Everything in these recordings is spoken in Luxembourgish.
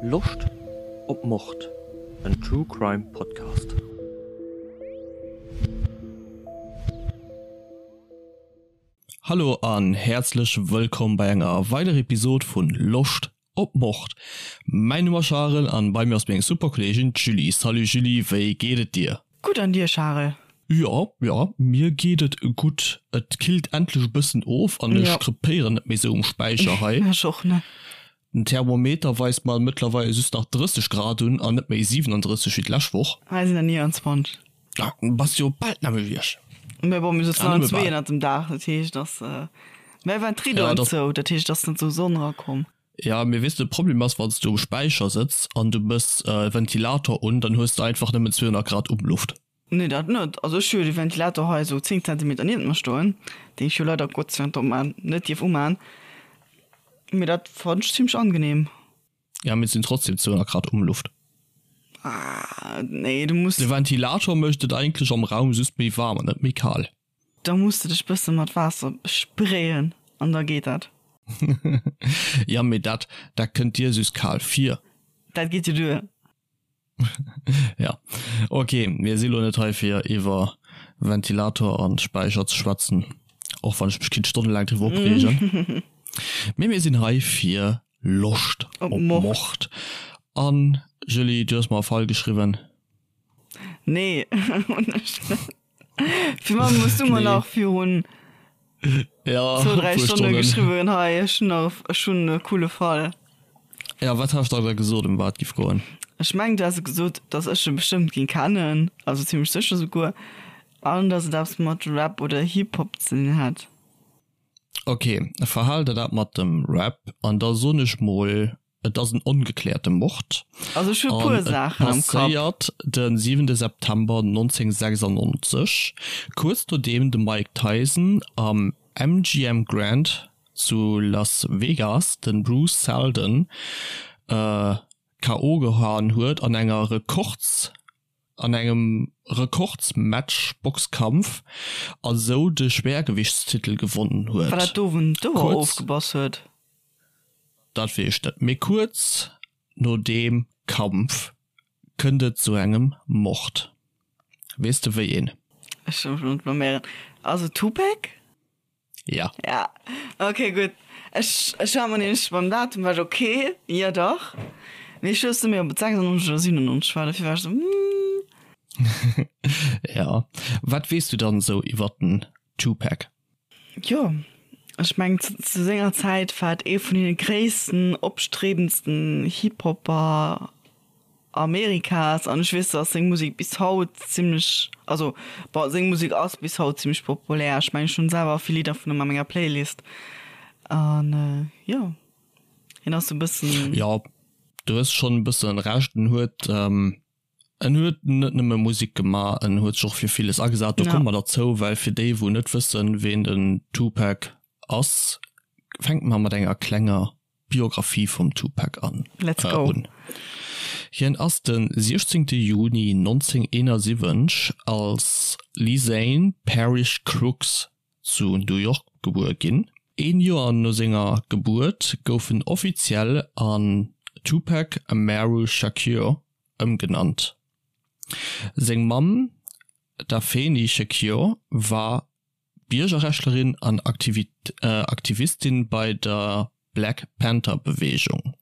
Loscht op Mord? En True Crime Podcast. Hallo an häerzlech wëllkomm bei enger weiderer Episode vun Loscht op Mord. Mäin Numm ass Charel an bei mir ass meng super Kolleegin d'Julie. Salut Julie, wéi geet et dir? Gutt an dir Charel? Jo, jo, mir geet et gutt. Et killt endlech e bëssen of an ech krepéieren net méi sou um Späicher hei. Ech och net. Den Thermometer weist mer mëttlerweil just nach 30 Grad un an net méi 37 wéi d'lescht Woch. Hei sinn der 29. Ah, bass jo bal d'nämmlecht wéi ech. Mä bon, mir sëtzen allen zwee ënnert dem Daach, dat heescht, dass, mä waren d'Ridoen zou, dat heescht, et ass net sou Sonn erakomm. Ja, mee weess de, de Problem ass, wann s du um Späicher sëtz an du mëss e Ventilator un, dann hues de einfach nëmmen 200 Grad Umluft. Nee, dat net. Also ech hu jo de Ventilator hei esou 10 Zentimeter niewent mer stoen, deen ech jo leider Gott sei Dank opman, net dierf uman. Mee dat fannen ech zimmlech angenehm. Ja, mee et sinn trotzdem 200 Grad Umluft. Ah, nee, du muss. De Ventilator mécht et eigentlech am Raum just méi waarm an net méi kal. Da muss de dech bësse mat Waasser besprayen an da geet dat. Ja, mee dat, dat kënnt dir just kal vir. Dat geet jo duer. Ja, ok, mir si lo net hei fir iwwer Ventilator an Späicher ze schwätzen, och wann ech mech kinnt stonnelaang driwwer opreegen. Mee mir sinn hei fir Loscht op Mord. An Julie, du hues mer e Fall geschriwwen. Nee, hunn ech net. Fir man muss du mer nach virun ja, zwou, dräi Stonne geschriwwen hei ech hunn nach ech hunn e coole Fall. Ja, wat has de da gesot ëm wat giff goen? Ech mengen du has gesot, datt ech e bestëmmt géing kennen, also zimmlech sécher souguer, an datt et eppes mat Rap oder Hip-Hop ze dinn hätt. Ok, verhal der dat mat dem Rap an da soen ech mol Et ass en ongekläerte Mord. Also ech hu e puer Saachen am Kapp. Passéiert de siwente September 1996, kuerz nodeem de Mike Tyson am MGM Grand zu Las Vegas de Bruce Seldon KO gehaen huet an enger Rekords an engem Rekordsmatch Boxkampf a sou de Schwergewichtstitel gewonnen huet. War dat do wou en d'Ouer ofgebass huet? Dat weess ech net, mee kuerz no deem Kampf kënnt et zu engem Mord. Weess de wéi een? Ech soll mech elo net blaméieren. Ass et Tupac? Ja. Ja, ok, gutt. Ech, ech war mer nämlech beim Datum war ech ok, jo dach. Mee ech wousst net méi, ob et 96 oder 97 war, dofir war ech esou, hm. Ja. Wat weess du dann esou iwwer den Tupac? Jo, ech mengen zu senger Zäit war et ee vun deene gréissten, opstrebendsten Hip-Hopper Amerikas an ech weess, dass seng Musek bis haut zimmlech, also bon, seng Musek ass bis haut zimmlech populär. Ech mengen, ech hunn selwer vill Lidder vun him a menger Playlist an jo, hien ass sou e bëssen. Jo, du hues schonn e bëssen Recht. En huet En huet net nëmme Musek gemaach, en huet sech och fir villes agesat. Do komme mer derzou, well fir déi wou net wëssen, ween den Tupac ass, fänke mer mat enger klenger Biographie vum Tupac an. Let's go! Un. Hien ass de 16 Juni 1971 als Lesane Parish Crooks zu New York gebuer ginn. Een Joer no senger Gebuert gouf en offiziell an Tupac Amaru Shakur ëmgenannt. Seng Mamm D'Afeni Shakur war Biergerrechtlerin an Aktivistin bei der Black Panther Beweegung.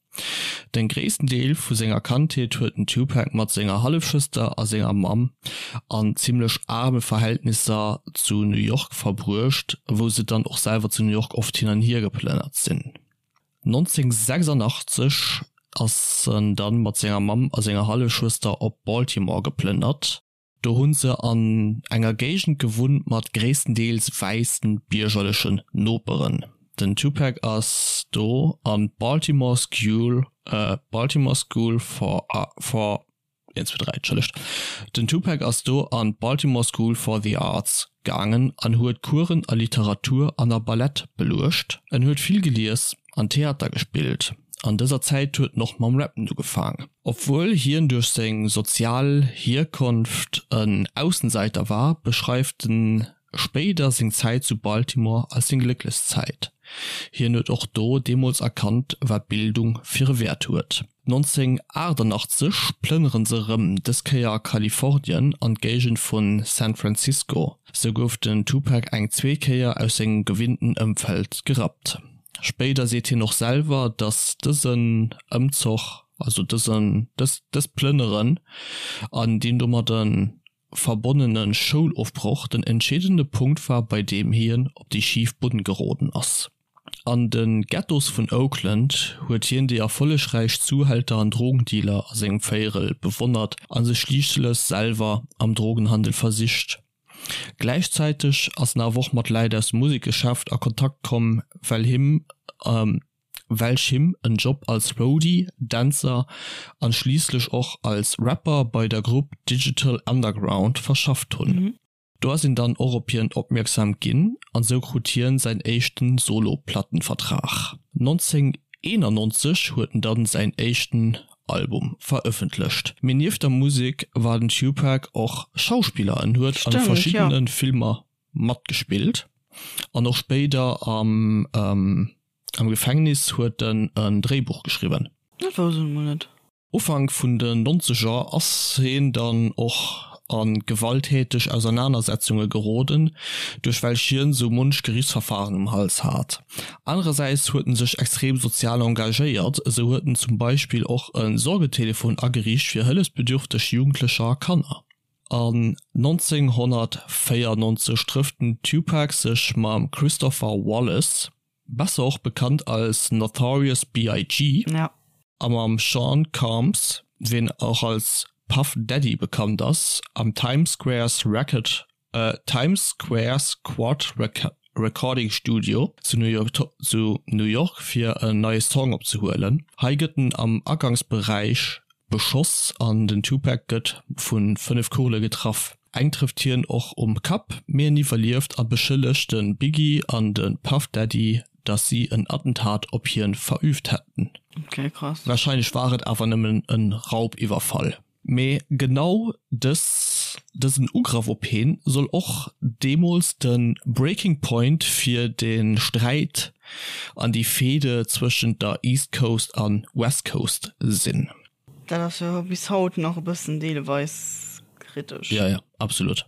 Den gréissten Deel vu senger Kandheet huet den Tupac mat senger Hallefschwëster a senger Mamm an zimmlech aarme Verhältnisser zu New York verbruecht, wou se dann och selwer zu New York oft hin an hier geplënnert sinn. 1986 ass en dann mat senger Mamm a senger Hallefschwëster op Baltimore geplënnert. Do hunn se an enger Géigend gewunnt mat gréisstendeels wäissen biergerlechen Noperen. Den Tupac ass do an d'Baltimore School, Baltimore School for for 1, 2, 3, entschëllegt. Den Tupac ass do an d'Baltimore School for the Arts gaangen an huet Coursen a Literatur an a Ballett beluecht. En huet vill gelies an Theater gespillt. An dëser Zäit huet en och mam Rappen ugefaang. Obwuel hien duerch seng sozial Hierkonft en Aussenseiter war, beschreift den. spéider seng Zäit zu Baltimore als seng glécklechst Zäit. Hien huet och do deemools erkannt, wat Bildung fir e Wäert huet. 1988 plënnere se erëm, dës Kéier a Kalifornien an d'Géigend vu San Francisco. Sou gouf den Tupac eng zweet Kéier aus sengem gewinnten Ëmfeld gerappt. Spéider seet hien och selwer, datt dësen Ëmzoch, also dësen, dëst Plënneren an deen domadde verbonnene Schoulofbroch den entscheedende Punkt war, bei deem hien op déi schif Bunn geroden ass. An de Ghettos vun Oakland huet hien déi erfollegräich Zuhälter an Drogendealer a sengem Véierel bewonnert a sech schliisslech selwer am Drogenhandel versicht. Gläichzäiteg ass en awer och mat Läit aus dem Musekgeschäft a Kontakt komm, well him welch him en Job als Roadie, Dänzer an schliisslech och als Rapper bei der Grupp Digital Underground verschafft hunn. Do ass een dann och op hien opmierksam ginn an sou krut hien säin éischten Solo-Plattenvertrag. 1991 huet en dann säin éischten Album verëffentlecht. Mee nieft der Musek war den Tupac och Schauspiller, en huet an verschiddenen Filmer matgespillt an och spéider am Am Gefängnis huet en en Dréibuch geschriwwen. Dat wousst ech mol net. Ufank vun den Nonzeger ass heen dann och a gewalttäteg Ausernanersetzunge geroden, duerch welch hien sou munch Gerichtsverfahren um Hals hat. Anerersäits huet en sech extrem sozial engagéiert, esou huet en zum Beispill och e Sorgetelefon ageriicht fir hëllefsbedürfteg Jugendlecher a Kanner. An 1994 trëfft den Tupac sech mam Christopher Wallace, besser och bekannt als Notorious BIG. A mam Sean Combs, ween och als Puff Daddy bekannt ass, am Times Squares Record Times Squares Quad Recording Studio zu New York fir en neie Song opzehuelen. Hei gëtt en am Agangsberäich beschoss an den Tupac gëtt vu 5 Kugele getraff. Eng trëfft hien och um Kapp, mee en iwwerlieft a beschëllegt de Biggie an de Puff Daddy, datt si en Attentat op hien verüübt hätten. Okay, krass. Warscheinlech war et awer nëmmen e Raubiwwerfall. Mee genau dës, dësen Ugrëff op heen soll och deemools de Breaking Point fir de Sträit an déi Fehde zwëschent der East Coast a West Coast sinn. Dat ass jo bis haut nach e bëssen deelweis kritesch. Jo, jo, absolut,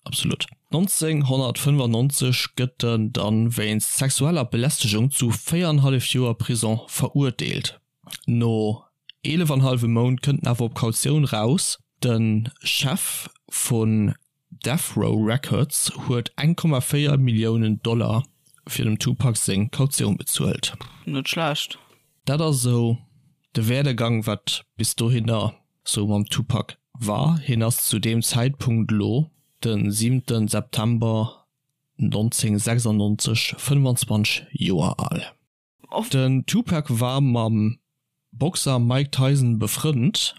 absolut. 1995 gëtt en dann wéinst sexueller Belästegung zu 4 an hallef Joer Prison verurteelt. No 11 an hallwem Mount kënnt en awer op Kautioun raus. De Chef vun Death Row Records huet 1,4 Milliounen Dollar fir dem Tupac seng Kautioun bezuelt. Net schlecht. Dat ass esou de Werdegang wat bis dohinner sou mam Tupac war. Hien ass zu deem Zäitpunkt elo, de siwenten September 1996, 25 Joer al. Den Tupac war mam Boxer Mike Tyson befrënnt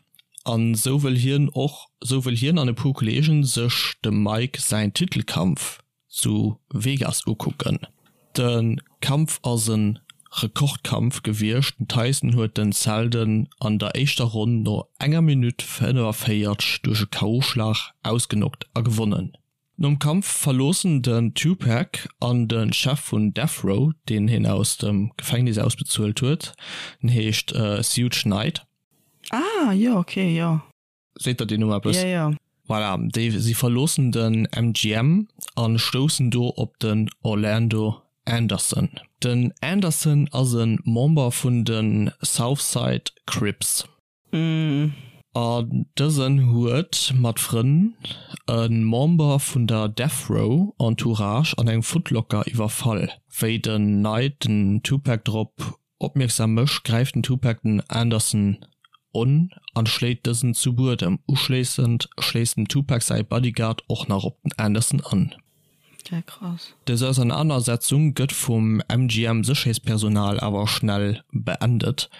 an sou wëll hien och sou wëll hien an e puer Kolleegen sech dem Mike säin Titelkampf zu Vegas ukucken. De Kampf ass e Rekordkampf gewiescht, den Tyson huet den Seldon an der éischter Ronn no enger Minutt 45 duerch e KO-Schlag ausgeknockt a gewonnen. Nom Kampf verloossen den Tupac an de Chef vun Death Row, deen hien aus dem Gefängnis ausbezuelt huet, den heescht Suge Knight. Ah jo, ok, jo. Seet der deen Numm eppes? Jo, jo. Voilà, déi si verloossen den MGM a stoussen do op den Orlando Anderson. Den Anderson ass e Member vun de Southside Crips. An dësen huet mat Frënn e Member vun der Death Row Entourage an engem Footlocker iwwerfall. Wéi den Knight den Tupac drop opmierksam mécht, gräift den Tupac den Anderson un an schléit dësen zu Buedem. Uschléissend schléisst dem Tupac säi Bodyguard och nach op den Anderson an. Ja, krass. Dës Ausernanersetzung gëtt vum MGM-Sécherheetspersonal awer schnell beendet,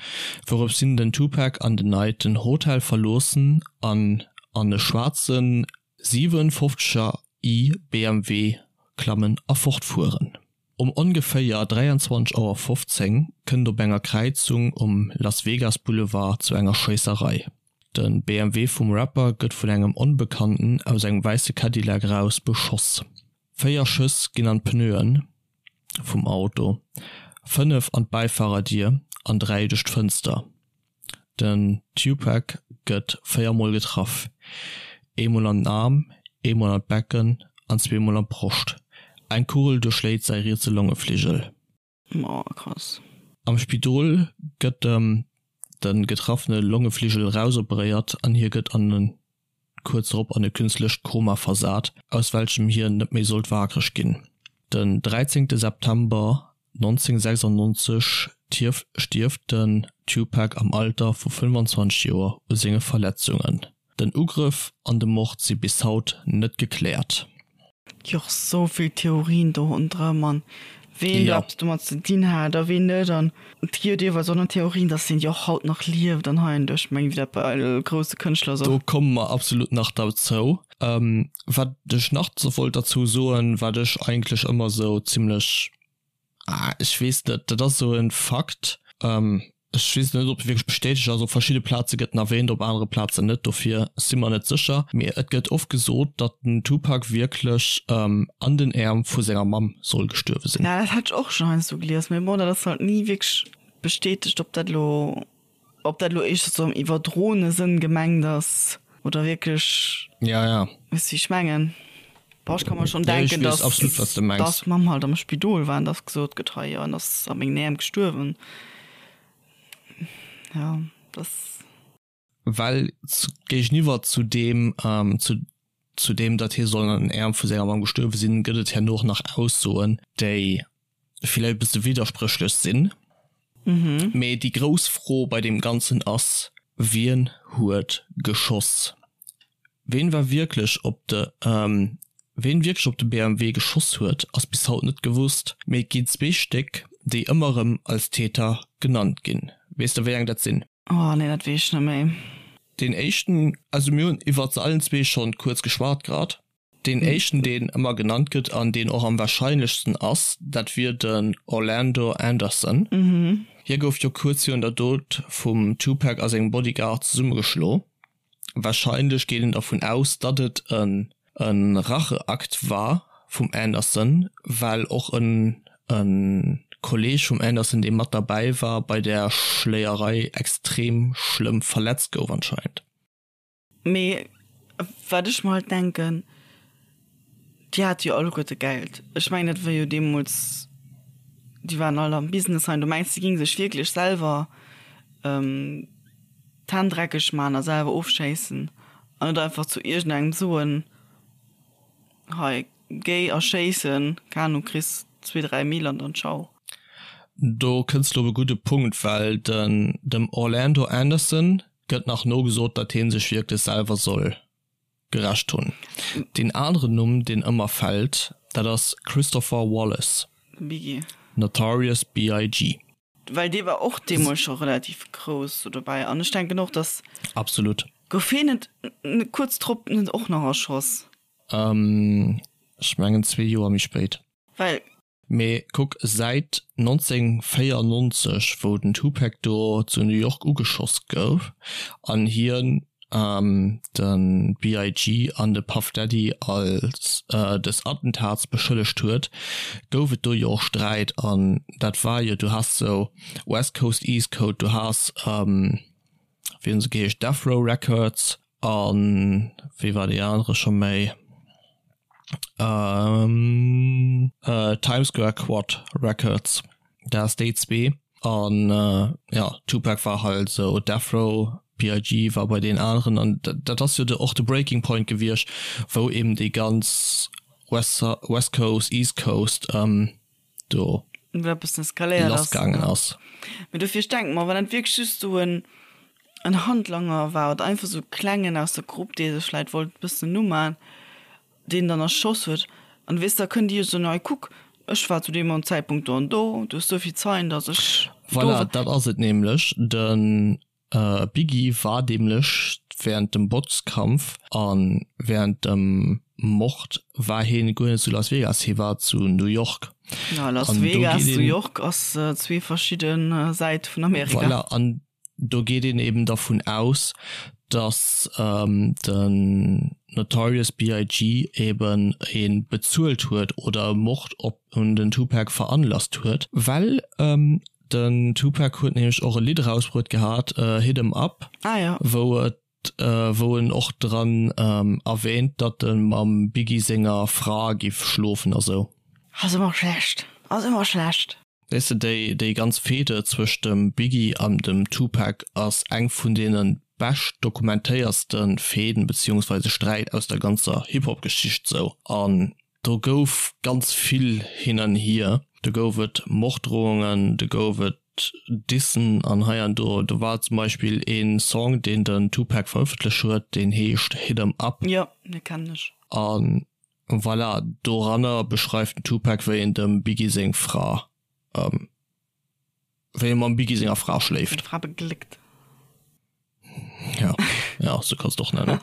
wourops hin den Tupac an den Knight den Hotel verloossen an an e schwaarze 57er i BMW klammen a fortfueren. Um ongeféier 23 Auer 15 kënnt op enger Kräizung um Las Vegas Boulevard zu enger Schéisserei. De BMW vum Rapper gëtt vun engem Onbekannten aus engem wäisse Cadillac eraus beschoss. 4 Schëss ginn an d'Pneuen vum Auto, 5 an d'Bäifarerdier an 3 duerch d'Fënster. Den Tupac gëtt 4 mol getraff, eemol an den Aarm, eemol an d'Becken an zweemol an d'Broscht. Eng Kugel duerchschléit säi rietse Longefligel. Oh krass. Am Spidol gëtt em de getraffene Longefligel erausoperéiert an hie gëtt an e kuerz drop an e künstlecht Koma versat, aus welchem hien net méi sollt waakreg ginn. Den 13 September 1996 stierft den Tupac am Alter vu 25 Joer u senge Verletzungen. Den Ugrëff an de Mord si bis haut net gekläert. Gi och sou vill Theorien do ronderëm an ween do eppes domat ze dinn hat a ween net an et gi jo deelweis och nach Theorien, dass deen jo och haut nach lieft an hei an do. Ech mengen wéi dat bei all grousse Kënschtler sou. Do komme mer absolut nach derzou. Wat ech nach wollt derzou soen, wat ech eigentlech ëmmer sou zimlech Ah, ech weess net, dat ass esou e Fakt, ech weess net, ob e wierklech bestätegt ass. Op verschidde Plaze gëtt en erwähnt, op anere Plazen net, dofir si mer net sécher. Mee et gëtt oft gesot, datt den Tupac wierklech an den Äerm vu senger Mamm soll gestuerwe sinn. Ja, dat hat ech och schonn heiansdo gelies, mee bon, dat ass halt ni wierklech bestätegt, ob dat elo Ob dat elo éischter sou am iwwerdroene Sënn gemengt ass oder wierklech, Ja, ja. weess wéi ech mengen? Boah, ech ka mer schonn Ja, ech denken, weess dass absolut, wat s de mengs. dass d'Mamm halt am Spidol war an dass gesot gëtt, hei, jo, en ass a mengen Äerm gestuerwen. Ja, dass. Well géigeniwwer zu deem, zu zu deem, datt hie soll an den Äerm vu senger Mamm gestuerwe sinn, gëtt et herno och nach Aussoen, déi villäicht e bësse widderspréchlech sinn. Mee déi grouss Fro bei deem Ganzen ass, Wien huet geschoss? Ween war wierklech op de Ween wierklech op de BMW geschoss huet, ass bis haut net gewosst, mee et ginn zwee Stéck, déi ëmmer erëm als Täter genannt ginn. Weess de wéi eng dat sinn? Oh nee, dat weess ech net méi. Deen éischten, also mir hunn iwwert se allen zwee schonn kuerz geschwat grad. Deen éischten, deen ëmmer genannt gëtt an deen och am warscheinlechsten ass, dat wier den Orlando Anderson. Hie gouf jo kuerz virun der Dot vum Tupac a sengem Bodyguard zesummegeschlo. Warscheinlech geet een dervun aus, datt et e Racheakt war vum Anderson, well och e Kolleeg vum Anderson, dee mat derbäi war bei där Schléierei, extrem schlëmm verletzt gouf anscheinend. Mee wat ech mer halt denken, déi hate jo alleguerte Geld. Ech mengen, dat war jo deemools, déi waren all am Business hei. Du mengs, déi géinge sech wierklech selwer d'Hänn dreckeg man a selwer ofschéissen an net einfach zu iergendengem soen, hei géi a schéissen, keng Ahnung, kriss zwee, dräi Mille an dann ciao. Do kënns de op e gudde Punkt, well den dem Orlando Anderson gëtt nach nogesot, datt hie sech wierklech selwer soll gerächt hunn. Deen aneren Numm, deen ëmmer fält, dat ass Christopher Wallace, Biggie. Notorious BIG. Well dee war och deemools scho relativ grouss do dobäi an ech denken och, datt. Absolut. Gouf hien net kuerz drop net och nach erschoss? Ech mengen zwee Joer méi spéit. Well. Mee kuck, säit 1994, wou den Tupac do zu New York ugeschoss gouf an hien de BIG an de Puff Daddy als des Attentats beschëllegt huet, gouf et do jo och Sträit an dat war jo, du has sou West Coast, East Coast, du has, wéi hunn se geheescht, Death Row Records an wéi war dee anere scho méi? Times Square Quad Records, dat ass déi zwee an jo Tupac war halt esou Death Row, BIG war bei deenen aneren an dat ass jo de och de Breaking Point gewiescht wou eben déi ganz West West Coast, East Coast do Wou dat bëssen eskaléiert ass. lassgaangen ass. Mee dofir, ech denke mer, wann dat wierklech just esou en en Handlanger war oder einfach esou e klengen aus der Grupp, dee sech vläit wollt e bëssen uman, deen dann erschoss huet, an weess, da kënnt Dir jo soen, hei kuck, ech war zu deem an Zäitpunkt do an do, du hues souvill Zeien, datt ech do Voilà, war. dat ass et nämlech. De Biggie war nämlech wärend dem Boxkampf a wärend dem Mord war hien guer net zu Las Vegas, hie war zu New York. Ja, Las An do Vegas, geet New een. York ass zwee verschidde Säite vun Amerika. Voilà, an do geet een eben dervun aus, datt den. Notorious BIG. Eben ee bezuelt huet oder e Mord op un den Tupac veranlasst huet, well den Tupac huet nämlech och e Lidd erausbruet gehat, Hit 'Em Up, wou et wou en och dran erwähnt, datt e mam Biggie senger Fra giff schlofen a sou. Ass ëmmer schlecht, ass ëmmer schlecht. Weess de, déi, déi ganz Fehde zwëscht dem Biggie an dem Tupac ass eng vun deene bescht dokumentéierste Fehden beziehungsweise Sträit aus der ganzer Hip-Hop-Geschicht sou. An do gouf ganz vill hin an hier. Do gouf et Morddrohungen, do gouf et Dissen an hei an do. Do war zum Beispill een Song, deen den Tupac verëffentlech huet, deen heescht Hit 'Em Up. Jo, dee kennen ech. An Voilà, doranner beschreift den Tupac wéi en dem Biggie seng Fra, wéi e mam Biggie senger Fra schléift. Seng Fra begléckt. Ja, ja, sou kanns de och nennen.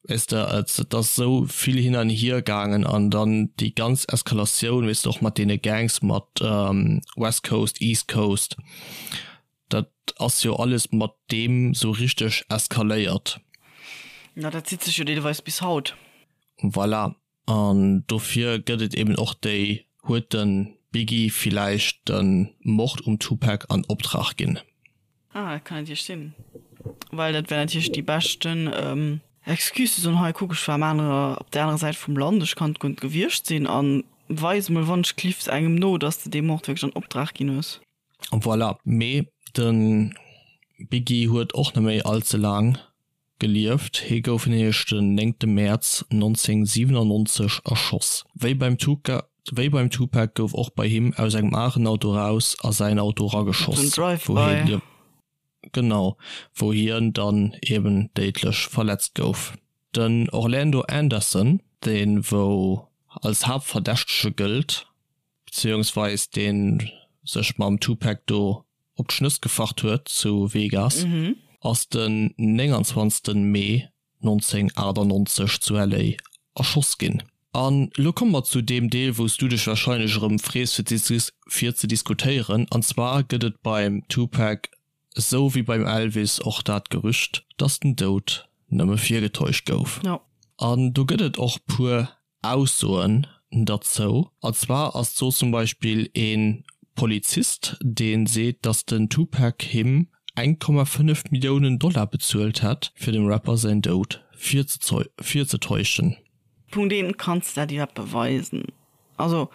Weess de, et, et ass sou vill hin an hier gaangen an dann déi ganz Eskalatioun, weess de, och mat deene Gangs, mat West Coast, East Coast, dat ass jo alles mat deem sou richteg eskaléiert. Na, dat zitt sech jo deelweis bis haut. Voilà, an dofir gëtt et eben och déi, huet de Biggie villäicht de Mord um Tupac an Optrag ginn? Ah, dat kann natierlech sinn, well dat wär natierlech déi beschten Excuse ze soen, hei kuck, ech war am anere, op där anerer Säit vum Land, ech kann guer net gewiescht sinn a weis emol wann ech cliffs engem no, datt s de dee Mord wierklech an Optrag ginn hues. Voilà, mee de Biggie huet och net méi all ze laang gelieft. Hie gouf nämlech den néngte Mäerz 1997 erschoss. Wéi beim Wéi beim Tupac gouf och bei him aus engem aneren Auto raus a säin Auto rageschoss, wou hie genau, wou hien dann eben déidlech verletzt gouf. Den Orlando Anderson, dee wou als Haaptverdächtege gëllt, beziehungsweis deen sech mam Tupac do op d'Schnëss gefacht huet zu Vegas, ass den 29 Mee 1998 zu LA erschoss ginn. An elo komme mer zu deem Deel wou s du dech wahrscheinlech erëm frees fir ze diskutéieren, an zwar gëtt et beim Tupac esou wéi beim Elvis och dat Gerücht, dass den Doud nëmme virgetäuscht gouf. An do gëtt et och puer Aussoen derzou. An zwar ass do zum Beispill ee Polizist, dee seet, datt den Tupac him 1,5 Milliounen Dollar bezuelt hätt, fir dem Rapper säin Doud virzetäuschen. Punkt 1, Kanns de dat iwwerhaapt beweisen? Also,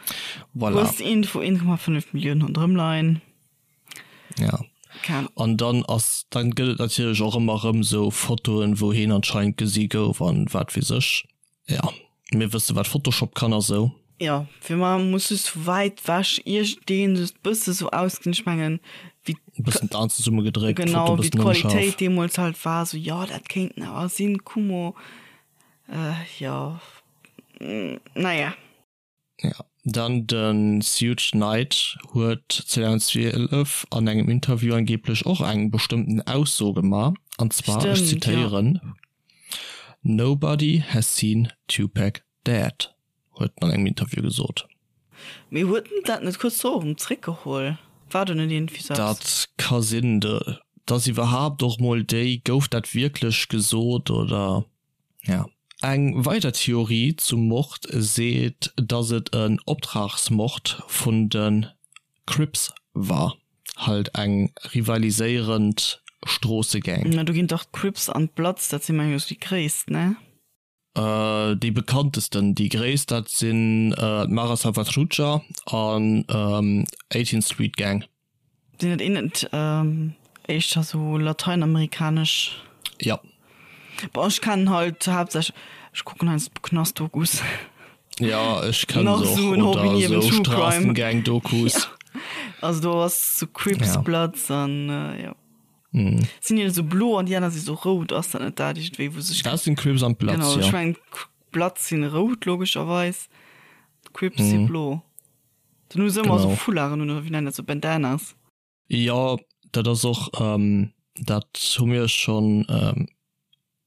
hues de iergendwou 1,5 Milliounen ronderëm leien? Ja. An dann ass, dann gëtt et natierlech och ëmmer erëm esou Fotoen, wou heen anscheinend gesi gouf an wat weess ech. Ja, mir wësse wat Photoshop kann a sou. Jo, fir mar muss just vu wäit wech iergendeen just bësse sou ausgesinn, ech mengen wéi. E bëssen d'Aen zesumme gedréckt, Genau, wéi d'Qualitéit deemools halt war, sou jo dat kéinten awer sinn, Kumo, jo, naja. Ja, dann de Suge Knight huet 2012 an engem Interview angeblech och eng bestëmmten Ausso gemaach, an zwar, ech zitéieren, Nobody has seen Tupac dead, huet en an engem Interview gesot. Mee huet en dat net kuerz drop erëm zréckgeholl? War do net iergendwéi sou eppes? Dat ka sinn. Dass iwwerhaapt och mol déi, gouf dat wierklech gesot oder? Ja. Eng weider Theorie zum Mord seet, dass et en Optragsmord vun de Crips war, halt eng rivaliséierend Stroossegang. Na do ginn dach d'Crips an d'Bloods, dat si mengen ech déi gréisst, ne? Déi bekanntesten, déi gréisst dat sinn d'Mara Salvatrucha an 18th Street Gang. Sinn dat een net éischter sou lateinamerikanesch? Ja. Bon, ech kennen halt haaptsächlech, ech kucken heiansdo Knastdokus. Ja, ech kennen se och. Oder sou Straßengang-Dokus. Ja. Also do ass sou Crips, Bloods an jo. Sinn déi sou blo an déi aner si sou rout, ass dat net dat iergendwéi wou sech. Dat sinn Crips an d'Bloods, jo. Genau, ech mengen d'Bloods sinn rout logescherweis, d'Crips si blo. Dann hu se ëmmer esou Foularden un, oder wéi nennen dat, sou Bandanas. Jo, dat ass och, dat hu mir schonn,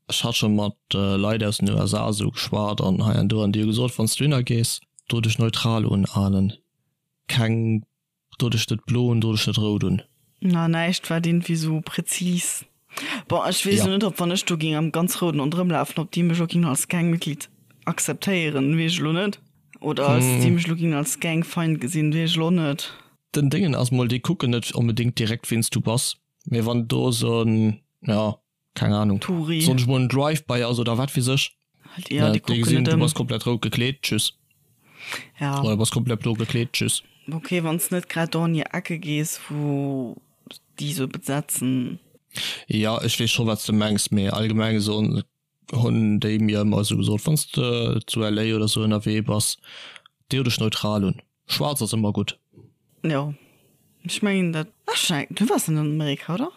ech hat scho mat Leit aus den USA esou geschwat an hei an do, an déi hu gesot, wann s du hinner gees, do dech neutral unalen, keng, do dech net blo un, do dech net rout un. Na, näischt wat iergendwéi sou präzis. Bon, ech weess elo net, ob wann ech do géing am ganz Rouden ronderëm lafen, ob déi mech och géingen als Gangmitglied akzeptéieren, weess ech elo net. Oder als déi mech elo géingen als Gangfeind gesinn, weess ech elo och net. Den Déngen ass mol, déi kucken net onbedéngt direkt ween s du bass, mee wann do esou en, jo, keng Ahnung, Touri. Soen ech mol en Drive-by ass oder wat weess ech, Halt, ja, déi déi kucken gesinn net du ëm. bass komplett rout gekleet, tschüss. Ja. Oder du bass komplett blo gekleet, tschüss. Ok, wann s net grad do an hir Ecke gees, wou déi sou besetzen. Jo, ech weess scho wat s de mengs, mee allgemeng soen hunn déi mir ëmmer esou gesot, wann s de zu LA oder sou ënnerwee bass, deo dech neutral un. Schwaarz ass ëmmer gutt. Jo, ech mengen dat. Ech, du waars net an Amerika, oder?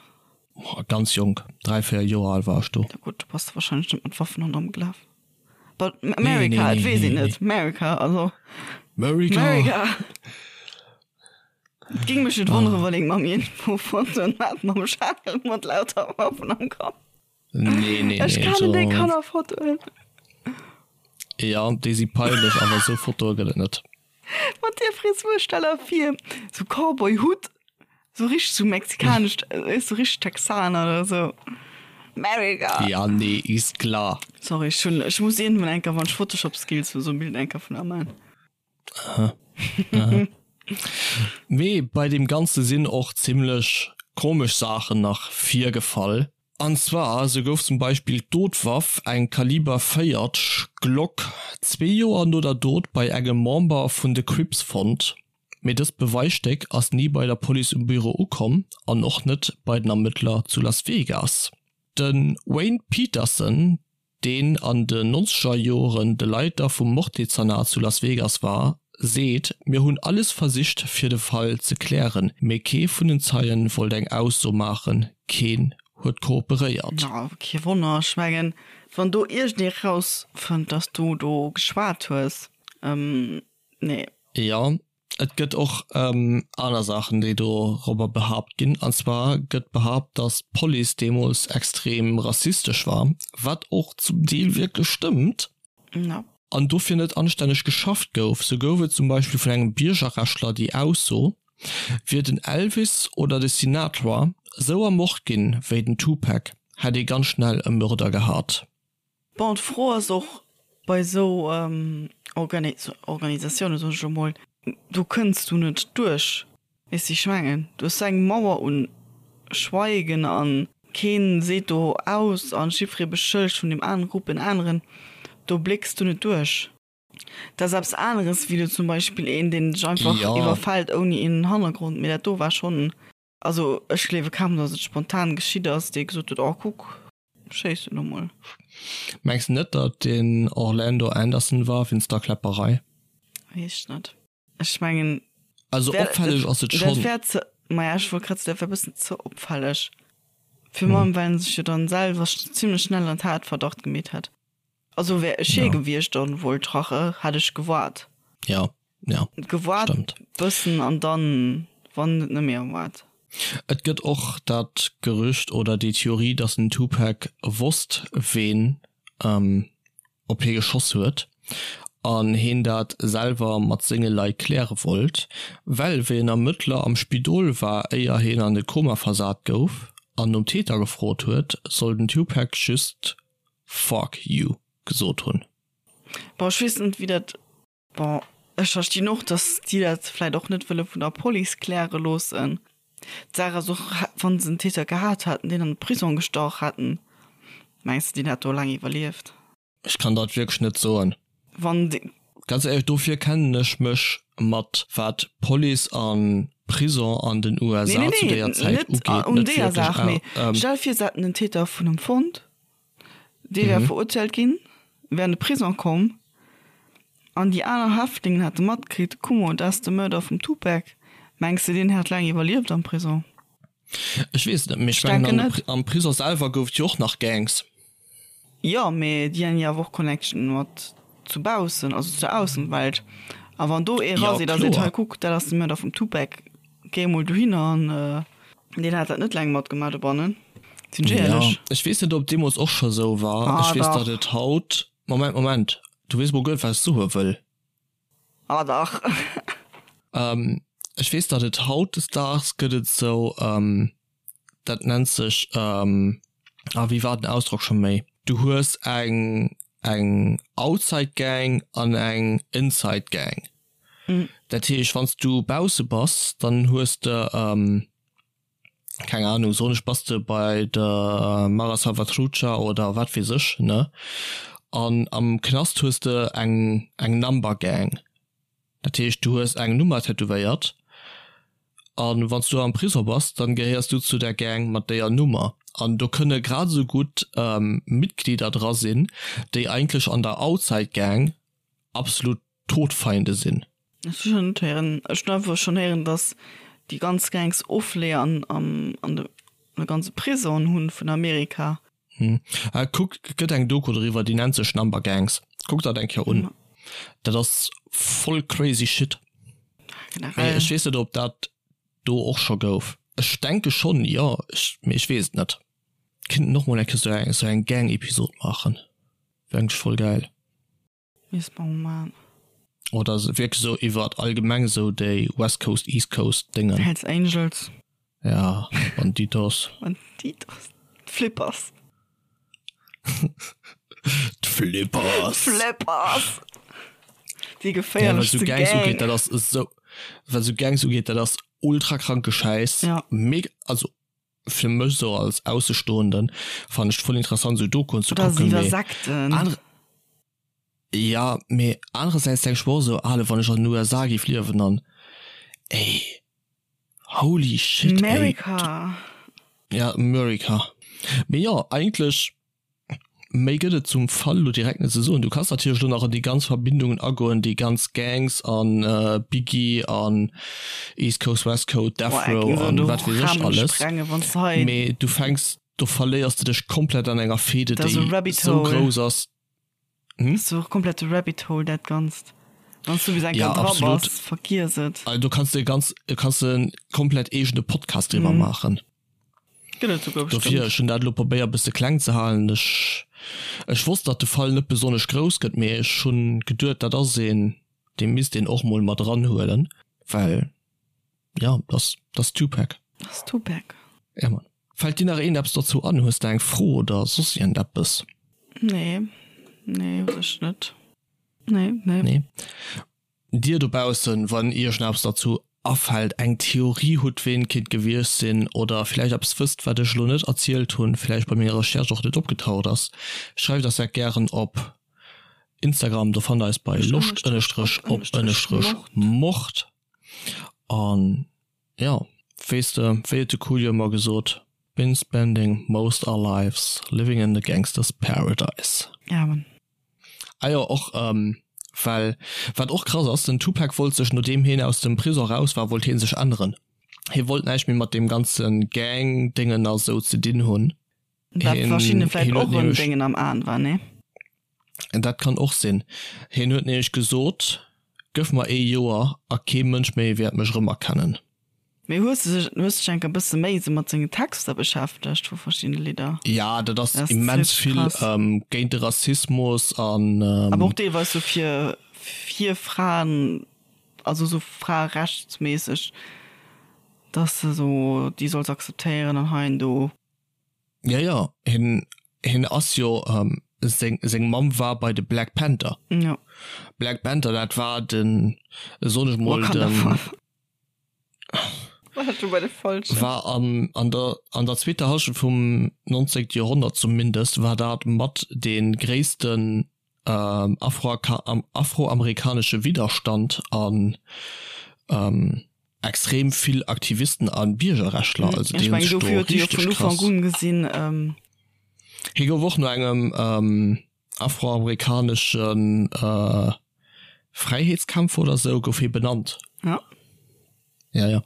Ganz jonk, 3, 4 Joer al war ech do. Ja gutt, du bass da wahrscheinlech net mat Waffen ronderëm gelaf. But America, et weess een net. America, also. America! America! Et géing mech net wonneren, wann eng Mamm iergendwou Fotoen hat mam Schal mat lauter Waffen am Kapp. Nee, nee, nee. Ech kennen déi Kannerfotoen. Ja, déi si peinlech, awer esou Fotoe gëtt et net. Mat där Frisur, stell der vir, sou Cowboy-Hutt, sou richteg sou mexikanesch, weess sou richteg Texaner oder sou. America! Ja, nee, is klar. Sorry, ech hunn, ech muss iergendwann eng Kéier, wann ech Photoshop-Skills hunn, sou e Bild eng Kéier vun der man. Aha. Aha. Mee bei deem Ganze sinn och zimmlech komesch Saachen nach virgefall. An zwar, sou gouf zum Beispill d'Dotwaff, eng Kaliber 40 Glock, zwee Joer no der Dot bei engem Member vun de Crips fonnt. Mee dëst Beweisstéck ass ni bei der Police um Büro ukomm an och net bei den Ermëttler zu Las Vegas. De Wayne Peterson, deen an den nonzeger Joren de Leiter vum Morddezernat zu Las Vegas war, seet, Mir hunn alles versicht fir de Fall ze klären, mee kee vun den Zeien wollt eng Ausso maachen, keen huet kooperéiert. Jo, kee Wonner. Ech mengen, wann do iergendee rausfënnt, dass du do geschwat hues, nee. Jo, Et gëtt och aner Saachen, déi dorobber behaapt ginn. An zwar gëtt behaapt, datt d'Police deemools extrem rassistesch war, wat och zum Deel wierklech stëmmt. An dofir net anstänneg geschafft gouf. Sou gouf et zum Beispill vun engem Biergerrechtler déi Ausso, Wier den Elvis oder de Sinatra sou ermort ginn wéi den Tupac, hätt ee ganz schnell e Mörder gehat. Bon, d'Fro ass och bei esou Organisatiounen, soen ech elo mol, do kënns du net duerch, weess de, ech mengen, du hues esou eng Mauer un Schweigen a kee seet do aus a jiddweree beschëllegt vun deem anere Grupp en aneren, do blécks du net duerch. Dat ass eppes aneres wéi elo zum Beispill een, deen dech einfach iwwerfält ouni een Hannergrond, mee dat do war schonn, also ech gleewe kaum, datt et spontan geschitt ass, dee gesot huet, oh kuck, Schéiss elo mol. Mengs de net dat den Orlando Anderson war wéinst der Kläpperei? Weess ech net. Ech mengen. Also opfälleg ass et schonn. Dat wär ze, maja ech wollt grad soen, dat wär bëssen ze opfälleg. Virun allem well en sech jo dann selwer zimlech schnell an Tatverdacht gemeet hätt. Also wär ech hie gewiescht an wollt rache, hätt ech gewaart. Ja, ja. Gewaart Stimmt. bëssen an dann, wann et net méi erwaart. Et gëtt och dat Gerücht oder déi Theorie, dass den Tupac wosst, ween op hie geschoss huet an heen dat selwer mat senge Leit kläre wollt, well wéi en Ermëttler am Spidol war, éier heen an de Koma versat gouf an nom Täter gefrot huet, soll den Tupac just Fuck you gesot hunn. Bon, ech weess net wéi dat, bon, ech verstinn och, datt déi dat vläit och net wëlle vun der Police kläre loossen. D'Saach ass och, wa se en Täter gehat hätten, deen an de Prisong gestach hätten, mengs de, deen hätt do laang iwwerlieft? Ech kann dat wierklech net soen. Wann dee. Ganz éierlech, dofir kennen ech mech mat wat Police an Prison an den Nee, USA nee, zu nee, déier Zäit net ugeet un net deeër wierklech Saach, mee stell vir, se hätten den Täter vun em fonnt, Dee wär verurteelt ginn, wär an de Prison komm an déi aner Häftlingen hätte matkritt, Kuck mol, dat ass de Mörder vum Tupac. Mengs de, deen hätt laang iwwerlieft am Prison? Ech weess et net, mee ech mengen am Prison selwer gouf et jo och nach Gangs. Jo, mee déi han jo awer och Connection mat zu baussen, also zu der Aussenwelt. A wann do ee raseet a seet, hei kuck, dat ass de Mörder vum Tupac, géi emol dohinner an deen hat dat net laang matgemaach dobannen, sinn ech éierlech. Jo, ech weess net, ob et deemools och scho sou war. Ech weess, datt et haut, Moment, Moment, du weess mol guer net, wat ech soe wëll. Ah dach. Ech weess, datt et hautdesdaags gëtt et sou, dat nennt sech. Ah, wéi war den Ausdrock scho méi? Du hues eng eng Outside Gang an eng Inside Gang. Dat heescht, wann s du bausse bass, dann hues de, keng Ahnung, soen ech, bass de bei der Mara Salvatrucha oder wat weess ech, ne? An am Knast hues de eng eng Number Gang. Dat heescht, du hues eng Nummer tätowéiert an wann s du am Prisong bass, dann gehéiers du zu der Gang mat déier Nummer. An do kënne grad esou gutt Mitglieder dra sinn, déi eigentlech an der Outside Gang absolut Todfeinde sinn. Ech hu schonn net héieren, ech hunn einfach schonn héieren, datt déi ganz Gangs Ofleeër an an de ganze Prisongen hunn vun Amerika. Kuck, et gëtt eng Doku doriwwer, déi nennt sech Number Gangs. Kuck dat eng Kéier un. Dat ass voll crazy shit. Mee ech weess net, ob dat do och scho gouf. Ech denke schonn, jo, mee ech weess et net. Kinnten och mol eng Kéier sou eng Gang-Episod maachen. Wär eigentlech voll gäil. Misst mer mol maan. Oder wierklech esou iwwert allgemeng esou déi West Coast, East Coast Déngen. Hells Angels. Ja, Banditos. Banditos. D'Flippers. D'Flippers. D'Flippers. Déi geféierlechste Gang. Ja, wat esou Gangs ugeet, dat ass esou, wat esou Gangs ugeet, dat ass ultra kranke Schäiss. Ja. Mega, also fir mech esou als Aussestoenden fannen ech et voll interessant esou Dokuen ze kucken, mee Sekten. Ja, mee anerersäits denk ech mer och esou, ale wann ech an den USA géif liewen an ey holy shit ey. America. Ja, America. Mee jo, eigentlech Méi gëtt et zum Fall elo direkt net ze soen. Du kanns natierlech elo nach an déi ganz Verbindungen agoen, déi ganz Gangs an Biggie an East Coast, West Coast, Death Row an wat weess ech alles. Mee du fänks, do verléiers de dech komplett an enger Fehde, déi esou grouss ass. Hm? Dat ass e komplette Rabbit Hole, dat Ganzt. Wann s du bis eng Kéier dra bass, vergiess et. Also do kanns de e ganz, kanns de en komplett eegene Podcast driwwer maachen. Gëtt et souguer Dofir, bestëmmt. ech hunn dat elo probéiert e bësse kleng ze halen. Ech, ech wosst, datt de Fall net besonnesch grouss gëtt, mee ech hunn geduet, dat ass een, dee misst een och mol mat eranhuelen, well, jo, dat ass, dat ass Tupac. Dat ass Tupac. Ja, Mann. Fält dir nach iergendeppes dozou an? Hues de eng Fro oder soss iergendeppes? Nee, nee, u sech net. Nee, nee. Nee. Dir dobaussen, wann iech nach eppes derzou afält, eng Theorie hutt, ween et kinnt gewiescht sinn, oder villäicht eppes wësst, wat ech elo net erzielt hunn, villäicht bei menger Recherche och net opgetaucht ass, schreift eis dat gären op Instagram, do fannt der eis bei loscht ënnestrech op ënnestrech mord. An jo, weess de, wéi huet de Coolio ëmmer gesot, Been spending most our lives living in the gangsters paradise. Amen. Ah jo, och well wat och krass ass, den Tupac wollt sech nodeem heen aus dem Prison raus war, wollt heen sech änneren. Hee wollt näischt méi mat deem ganze Gang Déngen a sou ze dinn hunn. Wat verschiddene vläit och en Déngen am Aen war, nee? Dat kann och sinn. Heen huet nämlech gesot, Gëff mer ee Joer a kee Mënsch méi wäert mech erëmerkennen. Mee hues de sech, hues dech enk e bësse méi esou mat sengen Texter beschäftegt vu verschiddene Lidder? Ja, dat ass immens vill géint de Rassismus an. Awer och deelweis sou fir, fir Fraen, also sou fraerechtsméisseg, dass de sou déi solls akzeptéieren an hei an do. Ja, ja, hien, hien ass jo, seng, seng Mamm war bei de Black Panther. Jo. Black Panther, dat war den, soen ech mol, den. War an an der an der zweeter Hallschent vum 19. Joerhonnert zumindest war dat mat dee gréissten afroamerikanesche Widderstand an extrem vill Aktivisten a Biergerrechtler. Also déi hunn sech do richteg krass. Hie gouf och no engem afroamerikanesche Fräiheetskämpfer oder sou gouf hie benannt. Ja. Ja, ja.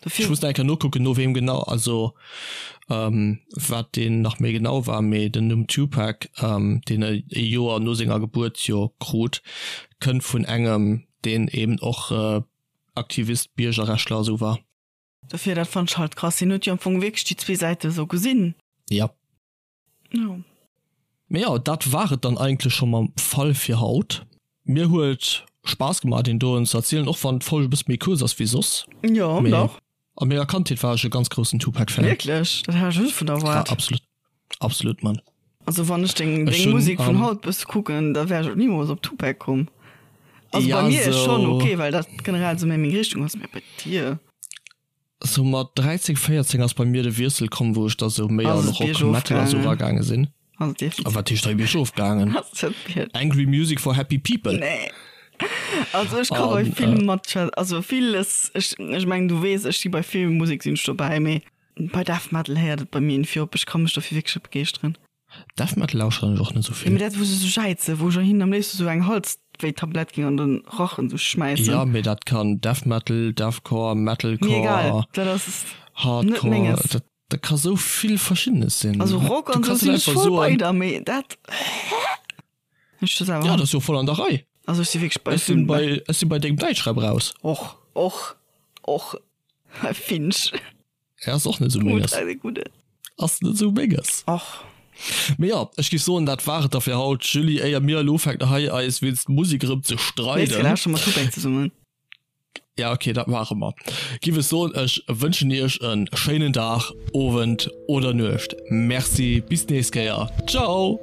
Dofir. Ech muss nach eng Kéier nokucken, no weem genau, also wat deen nach méi genau war, mee den Numm Tupac, deen e Joer no senger Gebuert jo krut, kënnt vun engem, deen eben och Aktivist, Biergerrechtler a sou war. Dofir, dat fannt ech halt krass. Hien huet jo am Fong wierklech déi zwee Säite sou gesinn. Ja. Jo. Mee jo, dat war et dann eigentlech scho mam Fall fir haut. Mir huet Spaass gemaach deen doen ze erzielen, och wann d'Folg e bësse méi kuerz ass wéi soss. Jo, Mee dach. a menger Kandheet war ech e ganz groussen Tupac Fan. Wierklech? Dat hat ech net vun erwaart. Ja, absolut. Absolut, Mann. Also wann ech deng, deng Musek vun haut bësse kucken, da wär ech och nimools op Tupac komm. Also bei mir ass schonn ok, well dat generell sou méi meng Richtung ass, mä bei dir? Sou mat 13, 14 ass bei mir de Wiessel komm, wou ech da sou méi an Rock, Metal a sou eragaange sinn. A wat heescht hei biergof gaangen? Angry Music for Happy People? Nee. Also ech ka bei vill mat, also villes, ech, ech mengen du weess, ech si bei vill Musek sinn ech dobäi, mee bei Death Metal héiert et bei mir iergendwéi op. Ech ka mech dofir wierklech net begeeschteren. Death Metal lauschteren ech och net sou vill. Mee dat wou se sou jäizen, wou ech hinnen am léifsten sou eng Halswéitablett géing an den Rachen sou schmäissen. Jo mee dat kann Death Metal, Deathcore, Metalcore, Mir egal, dat ass net menges. Hardcore, dat ka sou vill verschiddenes sinn. Also Rock an sou sinn ech voll bei der, mee dat ech jo selwer. Ja dat ass jo voll an der Rei. Also ech si wierklech bei Ech sinn bei, ech sinn bei dengem Däitschrap raus. Och, och, och Finch. Ja, ass och net sou menges. Ass net sou menges. Och. Mee jo, ech géif soen, dat war et da fir haut. Julie, éier mir elo ufänken hei eis wéinst Musek erëm ze streiden. Nächst Kéier lauschteren mer Tupac zesummen. Ja, okay, dat maache mer. Giff ech soen, ech wënschen iech e schéinen Dag, Owend oder Nuecht. Merci, bis d'nächst Kéier. Ciao!